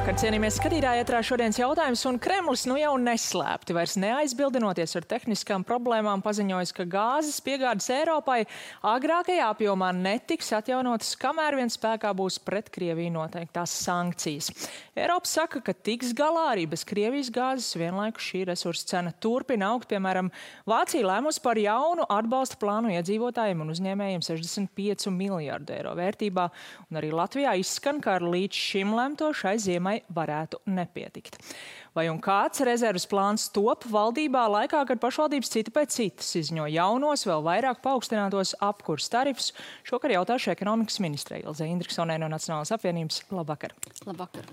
Labvakar, cienījamies skatītāji, ētrā šodienas jautājums, un Kremlis nu jau neslēpti, vairs neaizbildinoties ar tehniskām problēmām, paziņojis, ka gāzes piegādes Eiropai agrākajā apjomā netiks atjaunotas, kamēr vien spēkā būs pret Krieviju noteiktās sankcijas. Eiropa saka, ka tiks galā arī bez Krievijas gāzes, vienlaikus šī resursa cena turpina augt. Piemēram, Vācija lēmusi par jaunu atbalsta plānu iedzīvotājiem un uzņēmējiem 65 miljārdu eiro vērtībā, un arī Latvijā izskan, ka ar līdz šim lemto šai ziemai varētu nepietikt. Vai un kāds rezerves plāns top valdībā laikā, kad pašvaldības cita pēc citas izņo jaunos, vēl vairāk paaugstinātos apkurs tarifus? Šokar jautāšu ekonomikas ministrei Ilzei Indriksonai no Nacionālās apvienības. Labvakar. Labvakar.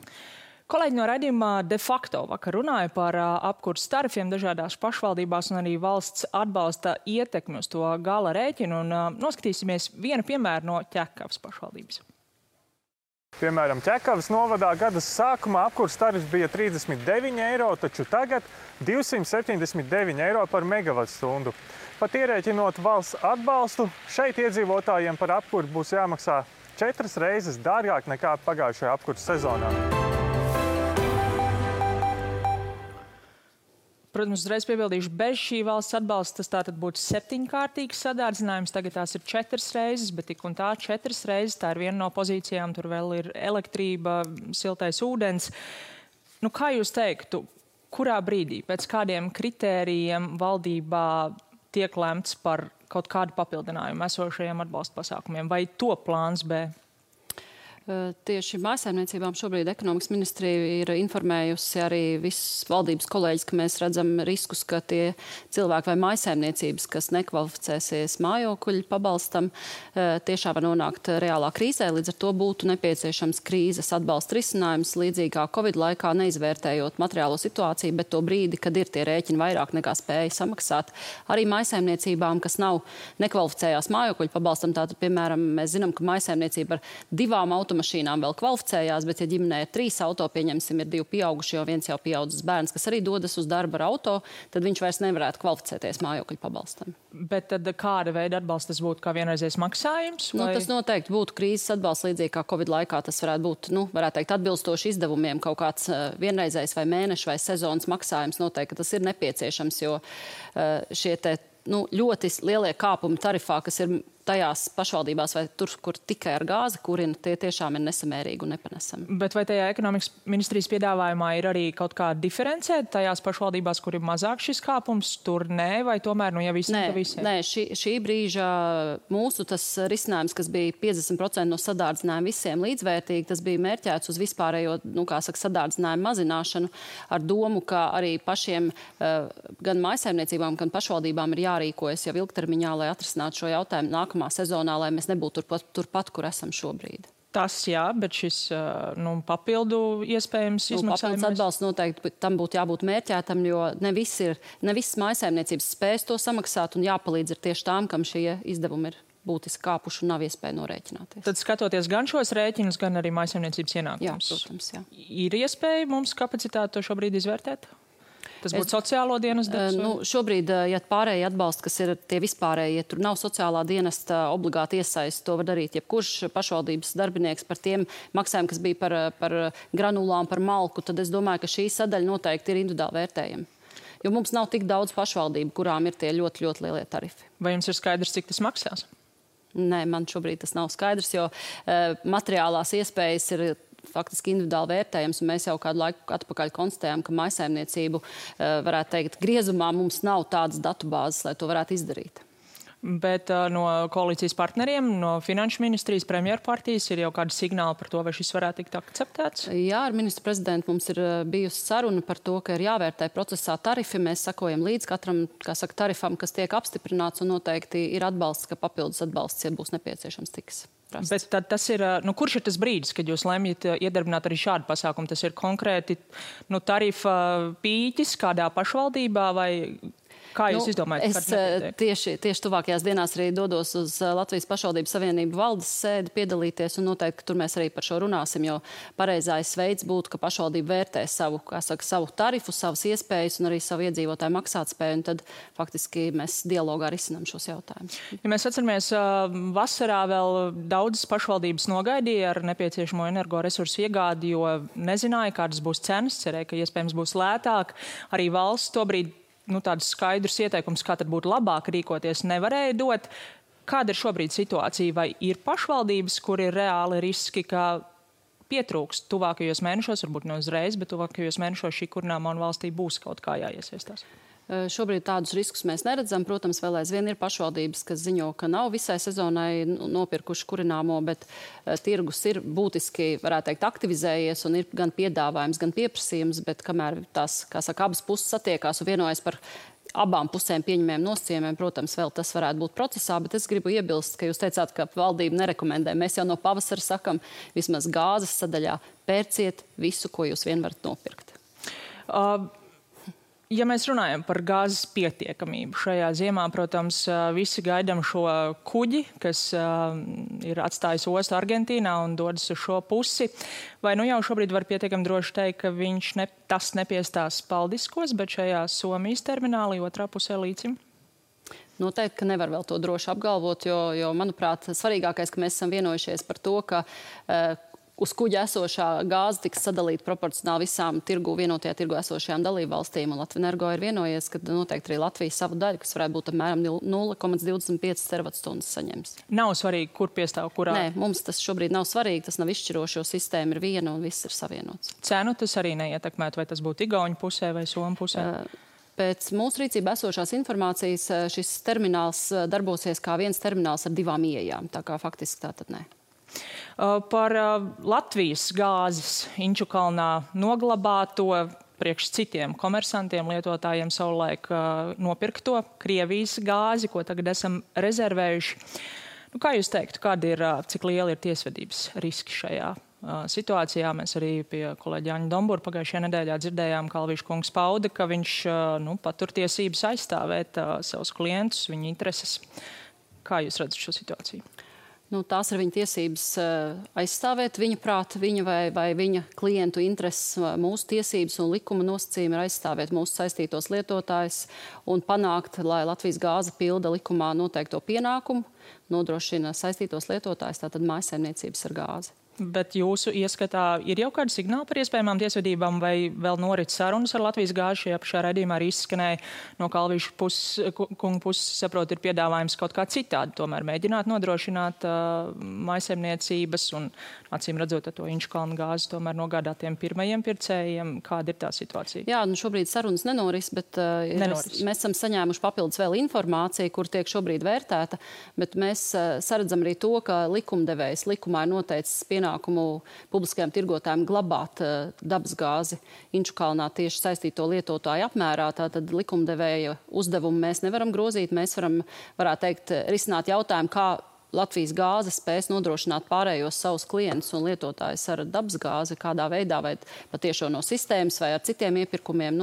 Kolēģi no raidījuma De facto vakar runāja par apkurs tarifiem dažādās pašvaldībās un arī valsts atbalsta ietekmi uz to gala rēķinu. Un noskatīsimies vienu piemēru no Ķekavas pašvaldības. Piemēram, Ķekavas novadā gada sākumā apkurs tarifs bija 39 eiro, taču tagad 279 eiro par megavatstundu. Pat ierēķinot valsts atbalstu, šeit iedzīvotājiem par apkuri būs jāmaksā 4 reizes dārgāk nekā pagājušajā apkurs sezonā. Protams, uzreiz piebildīšu, bez šī valsts atbalsta tas tātad būtu 7-kārtīgs sadārdzinājums, tagad tās ir 4 reizes, bet tik un tā 4 reizes, tā ir viena no pozīcijām, tur vēl ir elektrība, siltais ūdens. Nu, kā jūs teiktu, kurā brīdī, pēc kādiem kritērijiem valdībā tiek lemts par kaut kādu papildinājumu esošajiem atbalsta pasākumiem, vai to plāns B? Tieši mājsaimniecībām šobrīd ekonomikas ministrija ir informējusi arī visus valdības kolēģis, ka mēs redzam riskus, ka tie cilvēki vai mājsaimniecības, kas nekvalificēsies mājokļu pabalstam, tiešām var nonākt reālā krīzē. Līdz ar to būtu nepieciešams krīzes atbalsta risinājums, līdzīgi kā Covid laikā, neizvērtējot materiālo situāciju, bet to brīdi, kad ir tie rēķini vairāk nekā spēja samaksāt. Arī mājsaimniecībām, kas nav nekvalificējās mājokļu pabalstam, tātad, piemēram, mēs zinām, ka mājsaimniecība ar 2 automašīnām vēl kvalificējās, bet, ja ģimenē ir 3 auto, pieņemsim, ir 2 pieauguši, jo viens jau pieaudzis bērns, kas arī dodas uz darbu ar auto, tad viņš vairs nevarētu kvalificēties mājokļu pabalstam. Bet tad kāda veida atbalsts tas būtu, kā vienreizējs maksājums? Vai? Tas noteikti būtu krīzes atbalsts, līdzīgi kā Covid laikā. Tas varētu būt, varētu teikt, atbilstoši izdevumiem, kaut kāds vienreizējs vai mēneša vai sezonas maksājums. Noteikti tas ir nepieciešams, jo šie ļoti lielie kāpumi tarifā, kas ir tajās pašvaldībās vai tur, kur tikai ar gāzi kurina, tie tiešām ir nesamērīgi un nepanesami. Bet vai tajā ekonomikas ministrijas piedāvājumā ir arī kaut kā diferencēt tajās pašvaldībās, kur ir mazāk šis kāpums, tur nē, vai tomēr, ja visiem, tad visiem? Nē, šī brīža mūsu tas risinājums, kas bija 50% no sadārdzinājuma visiem līdzvērtīgi, tas bija mērķēts uz vispārējo, sadārdzinājumu mazināšanu ar domu, ka arī pašiem gan mājsaimniecībām, gan pašvaldībām ir jārīkojas jau ilgtermiņā, lai atrisinātu šo jautājumu nākamā sezonā, lai mēs nebūtu turpat, kur esam šobrīd. Tas jā, bet šis papildu iespējams izmaksājums? Papildus atbalsts noteikti tam būtu jābūt mērķētam, jo ne visas mājsaimniecības spējas to samaksāt un jāpalīdz ir tieši tām, kam šie izdevumi ir būtiski kāpuši un nav iespēja norēķināties. Tad skatoties gan šos rēķinus, gan arī mājsaimniecības ienākumus. Jā, protams, jā. Ir iespēja mums kapacitāti to šobrīd izvērtēt? Tas būtu sociālo dienestu darbs? Šobrīd, ja pārējie atbalsti, kas ir tie vispārējie, tur nav sociālā dienesta obligāti iesaist, to var darīt jebkurš pašvaldības darbinieks par tiem maksājumiem, kas bija par granulām, par malku, tad es domāju, ka šī sadaļa noteikti ir individuāli vērtējama. Jo mums nav tik daudz pašvaldību, kurām ir tie ļoti, ļoti lielie tarifi. Vai jums ir skaidrs, cik tas maksās? Nē, man šobrīd tas nav skaidrs, jo materiālās iespējas ir faktiski individuāli vērtējams, un mēs jau kādu laiku atpakaļ konstatējām, ka mājsaimniecību, varētu teikt, griezumā mums nav tādas datubāzes, lai to varētu izdarīt. Bet no koalīcijas partneriem, no finanšu ministrijas, premjerpartijas ir jau kādi signāli par to, vai šis varētu tikt akceptēts? Jā, ar ministru prezidentu mums ir bijusi saruna par to, ka ir jāvērtē procesā tarifi. Mēs sakojam līdz katram, tarifam, kas tiek apstiprināts, un noteikti ir atbalsts, ka papildus atbalsts, ja būs nepieciešams, tiks. Bet tad tas ir, kurš ir tas brīdis, kad jūs lemjat iedarbināt arī šādu pasākumu? Tas ir konkrēti tarifa pīķis kādā pašvaldībā vai... Kā jūs izdomājat, kad nepietiek? Tieši tuvākajās dienās arī dodos uz Latvijas pašvaldības savienību valdes sēdi piedalīties, un noteikti tur mēs arī par šo runāsim, jo pareizais veids būtu, ka pašvaldība vērtē savu tarifu, savas iespējas un arī savu iedzīvotāju maksātspēju, un tad faktiski mēs dialogā risinām šos jautājumus. Ja mēs atceramies, vasarā vēl daudzas pašvaldības nogaidīja ar nepieciešamo energoresursu iegādi, jo nezināja, kādas būs cenas, cerēja, ka iespējams būs lētāk. Arī valsts tobrīd tādus skaidrus ieteikumus, kā tad būtu labāk rīkoties, nevarēja dot. Kāda ir šobrīd situācija? Vai ir pašvaldības, kur ir reāli riski, ka pietrūkst tuvākajos mēnešos, varbūt ne uzreiz, bet tuvākajos mēnešos šī kurināmā un valstī būs kaut kā jāiesaistās? Šobrīd tādus riskus mēs neredzam. Protams, vēl aizvien ir pašvaldības, kas ziņo, ka nav visai sezonai nopirkuši kurināmo, bet tirgus ir būtiski, varētu teikt, aktivizējies un ir gan piedāvājums, gan pieprasījums, bet kamēr tās, abas puses satiekās un vienojas par abām pusēm pieņemiem nosacījumiem, protams, vēl tas varētu būt procesā, bet es gribu iebilst, ka jūs teicāt, ka valdība nerekomendē. Mēs jau no pavasara sakam, vismaz gāzes sadaļā pērciet visu, ko jūs vien varat nopirkt. Ja mēs runājam par gāzes pietiekamību šajā ziemā, protams, visi gaidām šo kuģi, kas ir atstājis ostu Argentīnā un dodas uz šo pusi. Vai jau šobrīd var pietiekami droši teikt, ka tas nepiestās Paldiskos, bet šajā Somijas terminālī otrā pusē līcim? Noteikti, ka nevar vēl to droši apgalvot, jo manuprāt, svarīgākais, ka mēs esam vienojušies par to, ka uz kuģa esošā gāze tiks sadalīta proporcionāli visām vienotajā tirgu esošajām dalībvalstīm. Un Latvenergo ir vienojies, ka noteikti arī Latvija savu daļu, kas varētu būt apmēram 0,25 terawatstundas saņems. Nav svarīgi, kur piestāv kurā? Nē, mums tas šobrīd nav svarīgi, tas nav izšķirošo, sistēma ir viena un viss ir savienots. Cenu tas arī neietekmētu, vai tas būtu Igauņu pusē vai Somu pusē? Pēc mūsu rīcībā esošās informācijas šis termināls darbosies kā viens termināls ar 2 ieejām, tā kā faktiski tā tad nē. Par Latvijas gāzes Inčukalnā noglabāto priekš citiem komersantiem, lietotājiem savulaik nopirkto Krievijas gāzi, ko tagad esam rezervējuši. Kā jūs teiktu, cik liela ir tiesvedības riski šajā situācijā? Mēs arī pie kolēģa Jāņa Dombura pagājušajā nedēļā dzirdējām, ka Alvīša kungs pauda, ka viņš patur tiesības aizstāvēt savus klientus, viņa intereses. Kā jūs redzat šo situāciju? Tās ir viņa tiesības aizstāvēt viņa prāta, viņa vai viņa klientu intereses. Mūsu tiesības un likuma nosacījumi ir aizstāvēt mūsu saistītos lietotājus un panākt, lai Latvijas gāze pilda likumā noteikto pienākumu, nodrošina saistītos lietotājus, tātad mājsaimniecības ar gāzi. Bet jūsu ieskatā ir jau kādi signāli par iespējamām tiesvedībām vai vēl norit sarunas ar Latvijas gāzi? Šajā pašā raidījumā arī izskanēja no Alvīša kunga puses, saprot, ir piedāvājums kaut kā citādi, tomēr mēģināt nodrošināt mājsaimniecības un, acīm redzot, to Inčukalna gāzi tomēr nogādātiem pirmajiem pircējiem. Kāda ir tā situācija? Jā, šobrīd sarunas nenoris, bet mēs esam saņēmuši papildus vēl informāciju, kur tiek šobrīd vērtēta, bet mēs saredzam arī to, ka likumdevējs likumā ir noteicis pienākumu publiskajām tirgotājiem glabāt dabasgāzi Inčukalnā tieši saistīto lietotāju apmērā. Tātad likumdevēja uzdevumu mēs nevaram grozīt. Mēs varētu teikt, risināt jautājumu, kā Latvijas gāze spēs nodrošināt pārējos savus klientus un lietotājus ar dabasgāzi, kādā veidā, vai patiešo no sistēmas vai ar citiem iepirkumiem.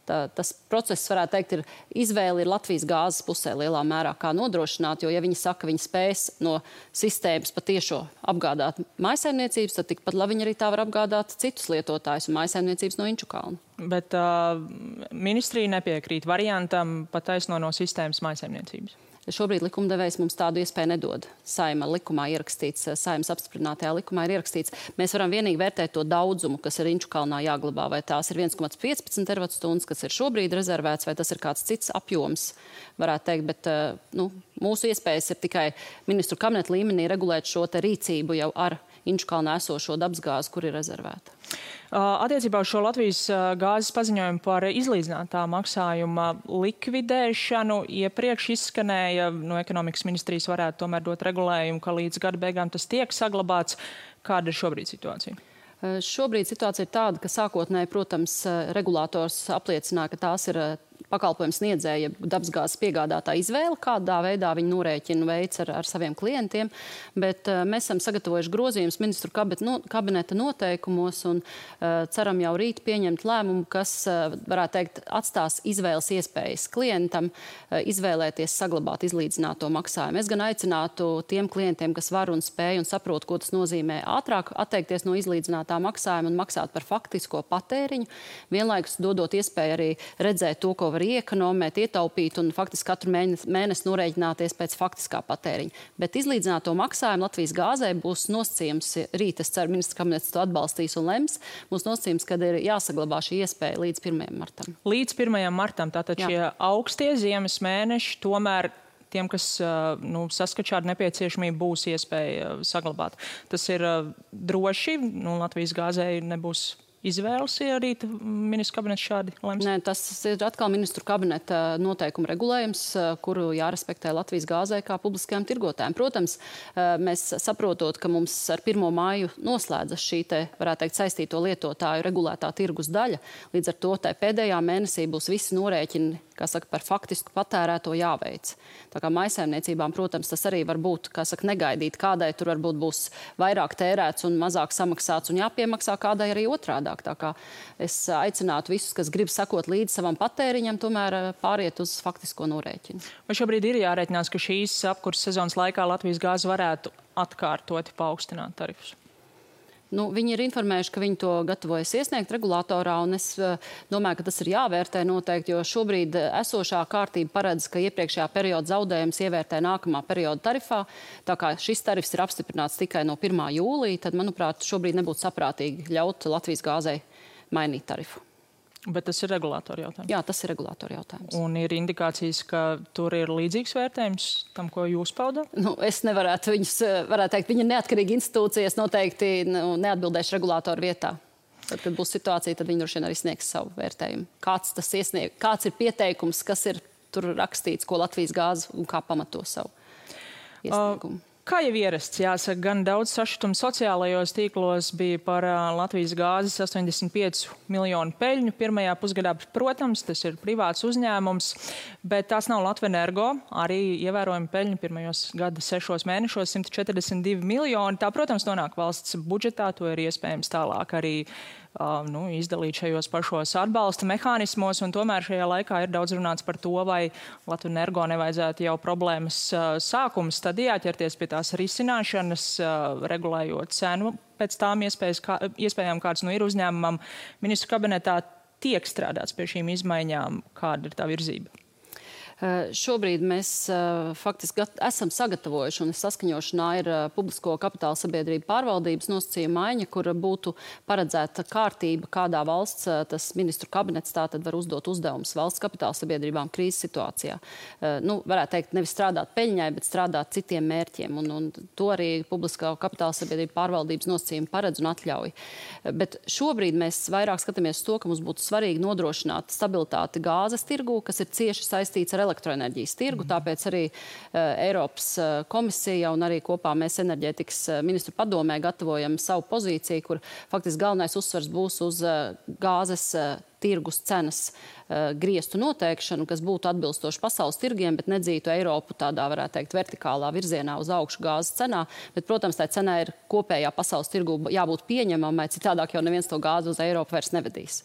Tas process, varētu teikt, izvēle ir Latvijas gāzes pusē lielā mērā, kā nodrošināt, jo, ja viņi saka, viņi spēs no sistēmas patiešo apgādāt mājsaimniecības, tad tikpat labi viņi arī tā var apgādāt citus lietotājus un mājsaimniecības no Inčukalna. Bet ministrija nepiekrīt variantam pataisno no sistēmas mājsaimniecības. Šobrīd likumdevējs mums tādu iespēju nedod. Saima likumā ierakstīts, Saimas apstiprinātajā likumā ir ierakstīts. Mēs varam vienīgi vērtēt to daudzumu, kas ir Inčukalnā jāglabā, vai tās ir 1,15 terawatstundas, kas ir šobrīd rezervēts, vai tas ir kāds cits apjoms, varētu teikt, bet mūsu iespējas ir tikai ministru kabineta līmenī regulēt šo te rīcību jau ar Inčukalnā esošo dabasgāzi, kur ir rezervēta. Attiecībā uz šo Latvijas gāzes paziņojumu par izlīdzinātā maksājuma likvidēšanu iepriekš izskanēja, no ekonomikas ministrijas varētu tomēr dot regulējumu, ka līdz gada beigām tas tiek saglabāts. Kāda ir šobrīd situācija? Šobrīd situācija ir tāda, ka sākotnēji, protams, regulators apliecināja, ka tās ir pakalpojumu sniedzēja dabasgāzes piegādātā izvēle, kādā veidā viņi norēķinu veids ar saviem klientiem, bet mēs esam sagatavojuši grozījumus ministru kabineta noteikumos un ceram jau rīt pieņemt lēmumu, kas, varētu teikt, atstās izvēles iespējas klientam izvēlēties saglabāt izlīdzināto maksājumu. Es gan aicinātu tiem klientiem, kas var un spēj un saprot, ko tas nozīmē ātrāk atteikties no izlīdzinātā maksājuma un maksāt par faktisko patēriņu, vienlaikus dodot iespēju arī redzēt to, ko var iekonomēt, ietaupīt un faktiski katru mēnesi norēķināties pēc faktiskā patēriņa. Bet izlīdzināto maksājumu Latvijas gāzē būs nosacījums, rīt es ceru, ministra kabinets to atbalstīs un lems, būs nosacījums, kad ir jāsaglabā šī iespēja līdz 1. martam. Līdz 1. martam, tātad šie augstie ziemas mēneši tomēr tiem, kas saskat šādu nepieciešamību, būs iespēja saglabāt. Tas ir droši, Latvijas gāzei nebūs izvēles, ja arī ministru kabinets šādi lems? Nē, tas ir atkal ministru kabineta noteikuma regulējums, kuru jārespektē Latvijas gāzē kā publiskajām tirgotājiem. Protams, mēs saprotot, ka mums ar 1. māju noslēdzas šī varētu teikt, saistīto lietotāju regulētā tirgus daļa. Līdz ar to pēdējā mēnesī būs visi norēķini, par faktisku patērēto jāveic. Tā kā maisaimniecībām, protams, tas arī var būt, negaidīt, kādai tur varbūt būs vairāk tērēts un mazāk samaksāts un jāpiemaksā, kādai arī otrādāk. Tā kā es aicinātu visus, kas grib sakot līdz savam patēriņam, tomēr pāriet uz faktisko norēķinu. Vai šobrīd ir jārēķinās, ka šīs apkurses sezonas laikā Latvijas gāze varētu atkārtoti paaugstināt tarifus? Viņi ir informējuši, ka viņi to gatavojas iesniegt regulātorā, un es domāju, ka tas ir jāvērtē noteikti, jo šobrīd esošā kārtība paredz, ka iepriekšējā perioda zaudējums ievērtē nākamā perioda tarifā. Tā kā šis tarifs ir apstiprināts tikai no 1. jūlija, tad, manuprāt, šobrīd nebūtu saprātīgi ļaut Latvijas gāzei mainīt tarifu. Bet tas ir regulātora jautājums? Jā, tas ir regulātora jautājums. Un ir indikācijas, ka tur ir līdzīgs vērtējums tam, ko jūs paudat? Es nevarētu viņus, varētu teikt, viņa neatkarīgi institūcijas noteikti neatbildēšu regulātoru vietā. Tad, kad būs situācija, tad viņi droši vien arī sniegs savu vērtējumu. Kāds ir pieteikums, kas ir tur rakstīts, ko Latvijas gāze un kā pamato savu iesniegumu? Kā jau ierasts, jāsaka, gan daudz sašutumu sociālajos tīklos bija par Latvijas gāzes 85 miljonu peļņu pirmajā pusgadā. Protams, tas ir privāts uzņēmums, bet tās nav Latvenergo. Arī ievērojami peļņu pirmajos gada 6 mēnešos 142 miljoni. Tā, protams, nonāk valsts budžetā, to ir iespējams tālāk arī izdalīt šajos pašos atbalsta mehānismos, un tomēr šajā laikā ir daudz runāts par to, vai Latvenergo nevajadzētu jau problēmas sākuma stadijā ķerties pie tās risināšanas, regulējot cenu pēc tām iespējām, kāds ir uzņēmumam. Ministru kabinetā tiek strādāts pie šīm izmaiņām, kāda ir tā virzība? Šobrīd mēs faktiski esam sagatavojuši un saskaņošanā ir publisko kapitāla sabiedrību pārvaldības nosacījuma maiņa, kur būtu paredzēta kārtība, kādā valsts tas ministru kabinets tātad var uzdot uzdevumus valsts kapitāla sabiedrībām krīzes situācijā. Varētu teikt, nevis strādāt peļņai, bet strādāt citiem mērķiem. Un to arī publiskā kapitāla sabiedrību pārvaldības nosacījuma paredz un atļauj. Bet šobrīd mēs vairāk skatāmies to, ka mums būtu svarīgi nodrošināt stabilitāti gāzes tirgū, kas ir cieši saistīts ar elektroenerģijas tirgu, tāpēc arī Eiropas komisija un arī kopā mēs enerģētikas ministru padomē gatavojam savu pozīciju, kur faktiski galvenais uzsvars būs uz gāzes tirgus cenas griestu noteikšanu, kas būtu atbilstoši pasaules tirgiem, bet nedzītu Eiropu tādā, varētu teikt, vertikālā virzienā uz augšu gāzes cenā. Bet, protams, tā cenā ir kopējā pasaules tirgu jābūt pieņemamai, citādāk jau neviens to gāzi uz Eiropu vairs nevedīs.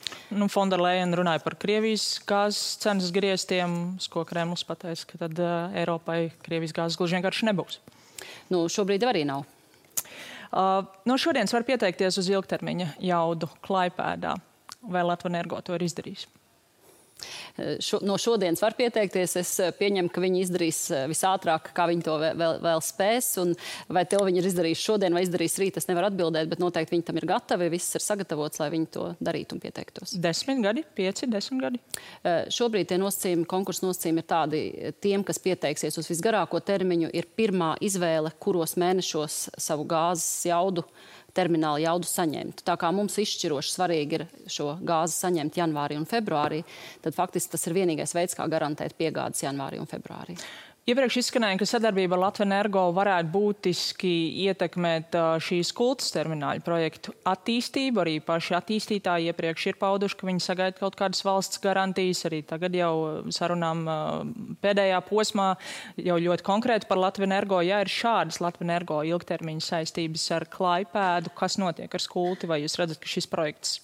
Fonda Lejena runāja par Krievijas gāzes cenas griestiem, ko Kremlis pateica, ka tad Eiropai Krievijas gāzes gluži vienkārši nebūs. Šobrīd arī nav. No šodienas var pieteikties uz ilgtermiņa jaudu Klaipēdā. Vai Latvenergo to ir izdarījis? No šodienas var pieteikties. Es pieņemu, ka viņi izdarīs visātrāk, kā viņi to vēl spēs. Un vai to viņi ir izdarījis šodien vai izdarīs rīt, es nevaru atbildēt, bet noteikti viņi tam ir gatavi. Viss ir sagatavots, lai viņi to darītu un pieteiktos. 10 gadi, 5, 10 gadi? Šobrīd tie nosacījumi, konkursu nosacījumi ir tādi, tiem, kas pieteiksies uz visgarāko termiņu, ir pirmā izvēle, kuros mēnešos savu gāzes jaudu termināla jaudu saņemt. Tā kā mums izšķiroši svarīgi ir šo gāzi saņemt janvārī un februārī, tad faktiski tas ir vienīgais veids, kā garantēt piegādes janvārī un februārī. Iepriekš izskanēja, ka sadarbība ar Latvenergo varētu būtiski ietekmēt šīs kultas termināļu projektu attīstību. Arī paši attīstītāji iepriekš ir pauduši, ka viņi sagaida kaut kādas valsts garantijas. Arī tagad jau sarunām pēdējā posmā jau ļoti konkrēti par Latvenergo. Ja ir šādas Latvenergo ilgtermiņa saistības ar Klaipēdu, kas notiek ar skulti? Vai jūs redzat, ka šis projekts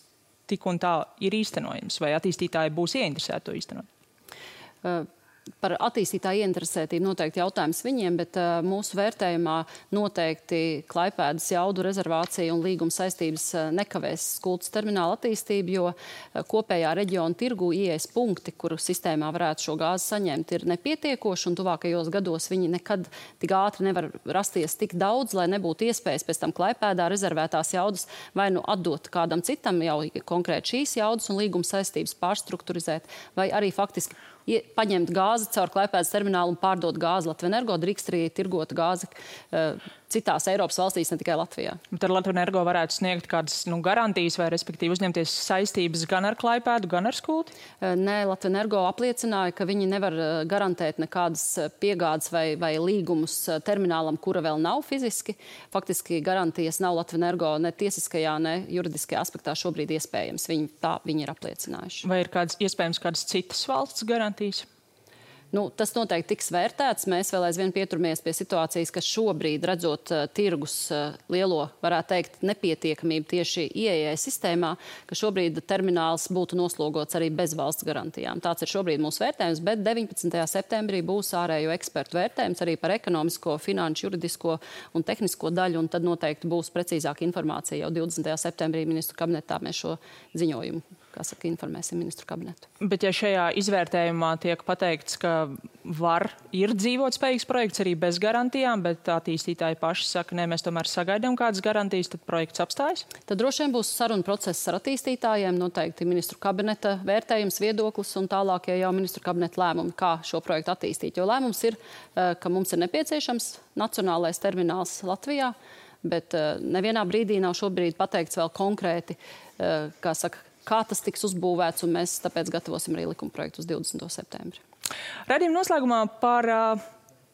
tik un tā ir īstenojams? Vai attīstītāji būs ieinteresēti to īstenot? Par attīstītāju ieinteresētību noteikti jautājums viņiem, bet mūsu vērtējumā noteikti Klaipēdas jaudu rezervācija un līguma saistības nekavēs skultas termināla attīstību, jo kopējā reģiona tirgu ieejas punkti, kuru sistēmā varētu šo gāzi saņemt, ir nepietiekoši, un tuvākajos gados viņi nekad tik ātri nevar rasties tik daudz, lai nebūtu iespējas pēc tam Klaipēdā rezervētās jaudas vai nu atdot kādam citam jau konkrēti šīs jaudas un līguma saistības pārstrukturizēt, vai arī faktiski paņemt gāzi caur Klaipēdas terminālu un pārdot gāzi Latvenergo, drīkst arī tirgot gāzi citās Eiropas valstīs, ne tikai Latvijā. Bet ar Latvenergo varētu sniegt kādas garantijas vai respektīvi uzņemties saistības gan ar Klaipēdu, gan ar skulti? Nē, Latvenergo apliecināja, ka viņi nevar garantēt nekādas piegādes vai līgumus terminālam, kura vēl nav fiziski. Faktiski garantijas nav Latvenergo ne tiesiskajā, ne juridiskajā aspektā šobrīd iespējams. Viņi ir apliecinājuši. Vai ir iespējams kādas citas valsts garantijas? Tas noteikti tiks vērtēts. Mēs vēl aizvien pieturamies pie situācijas, ka šobrīd, redzot tirgus lielo, varētu teikt, nepietiekamību tieši ieejai sistēmā, ka šobrīd termināls būtu noslogots arī bez valsts garantijām. Tāds ir šobrīd mūsu vērtējums, bet 19. septembrī būs ārējo ekspertu vērtējums arī par ekonomisko, finanšu, juridisko un tehnisko daļu, un tad noteikti būs precīzāka informācija. Jau 20. septembrī ministru kabinetā mēs šo ziņojumu, informēsim ministru kabinetu. Bet ja šajā izvērtējumā tiek pateikts, ka ir dzīvotspējīgs projekts arī bez garantijām, bet attīstītāji paši saka, nē, mēs tomēr sagaidām kādas garantijas, tad projekts apstājas? Tad droši vien būs saruna process ar attīstītājiem, noteikti ministru kabineta vērtējums, viedoklis un tālākie jau ministru kabineta lēmumi, kā šo projektu attīstīt. Jo lēmums ir, ka mums ir nepieciešams nacionālais termināls Latvijā, bet nevienā brīdī nav šobrīd pateikts vēl konkrēti, kā tas tiks uzbūvēts, un mēs tāpēc gatavosim arī likuma projektu uz 20. septembri. Raidījuma noslēgumā par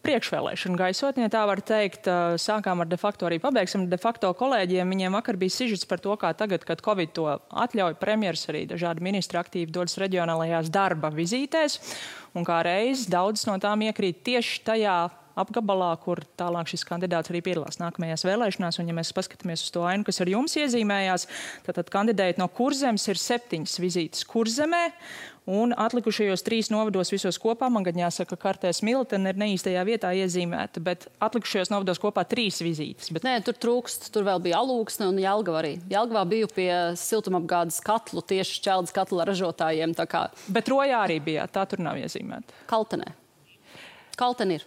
priekšvēlēšanu gaisotni, ja tā var teikt. Sākām ar de facto, arī pabeigsim de facto kolēģiem. Viņiem vakar bija sižets par to, kā tagad, kad Covid to atļauj, premjers arī dažādi ministri aktīvi dodas reģionālajās darba vizītēs, un kā reiz daudz no tām iekrīt tieši tajā apgabalā, kur tālāk šis kandidāts arī piedalās nākamajās vēlēšanās. Un, ja mēs paskatāmies uz to ainu, kas ar jums iezīmējās, tad kandidējot no Kurzemes ir 7 vizītes Kurzemē, un atlikušajos 3 novados visos kopā, man gan jāsaka, kartē Smiltene ir neīstajā vietā iezīmēta, bet atlikušajos novados kopā 3 vizītes. Nē, tur trūkst, tur vēl bija Alūksne un Jelgava arī. Jelgavā biju pie siltumapgādes katlu, tieši šķeldes katla ražotājiem. Bet Rojā arī bija, tā tur nav iezīmēta. Kaltenē. Kalten ir.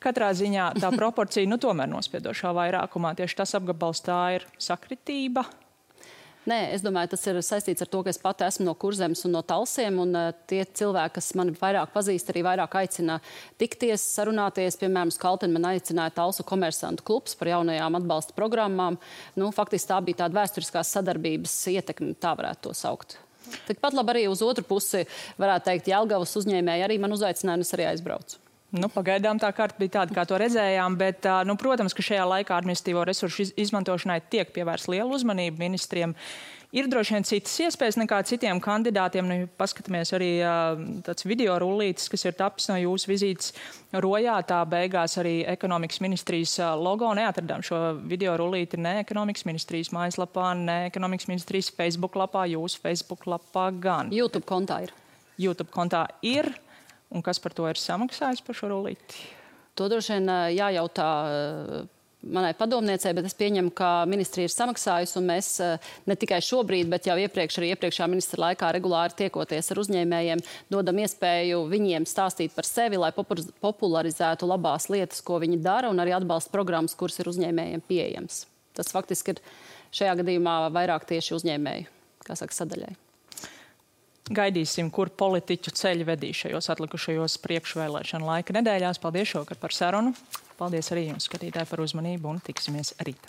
Katrā ziņā tā proporcija tomēr nospiedošā vairākumā. Tieši tas apgabals, tā ir sakritība. Nē, es domāju, tas ir saistīts ar to, ka es pati esmu no Kurzemes un no Talsiem, un tie cilvēki, kas mani vairāk pazīst, arī vairāk aicina tikties, sarunāties. Piemēram, uz Kalteni man aicināja Talsu komersantu klubs par jaunajām atbalsta programmām. Faktiski tā bija tāda vēsturiskās sadarbības ietekme, tā varētu to saukt. Tikpat labi arī uz otru pusi, varētu teikt, Jelgavas uzņēmēji arī man uzaicināja, un es arī aizbraucu. Pagaidām tā karta bija tāda, kā to redzējām, bet, protams, ka šajā laikā administratīvo resursu izmantošanai tiek pievērsta liela uzmanība ministriem. Ir droši vien citas iespējas nekā citiem kandidātiem. Paskatāmies arī tāds video rullītis, kas ir tapis no jūsu vizītes Rojā. Tā beigās arī ekonomikas ministrijas logo. Neatradām šo video rullīti ne ekonomikas ministrijas mājaslapā, ne ekonomikas ministrijas Facebook lapā, jūsu Facebook lapā gan. YouTube kontā ir. YouTube kontā ir. Un kas par to ir samaksājis par šo rullīti? To droši vien jājautā manai padomniecei, bet es pieņemu, ka ministrija ir samaksājusi, un mēs ne tikai šobrīd, bet jau arī iepriekšā ministra laikā regulāri tiekoties ar uzņēmējiem, dodam iespēju viņiem stāstīt par sevi, lai popularizētu labās lietas, ko viņi dara, un arī atbalsta programmas, kuras ir uzņēmējiem pieejams. Tas faktiski ir šajā gadījumā vairāk tieši uzņēmēju, sadaļai. Gaidīsim, kur politiķu ceļi vedīs šajos atlikušajos priekšvēlēšanu laika nedēļās. Paldies šovakar par sarunu. Paldies arī jums, skatītāji, par uzmanību, un tiksimies rīt.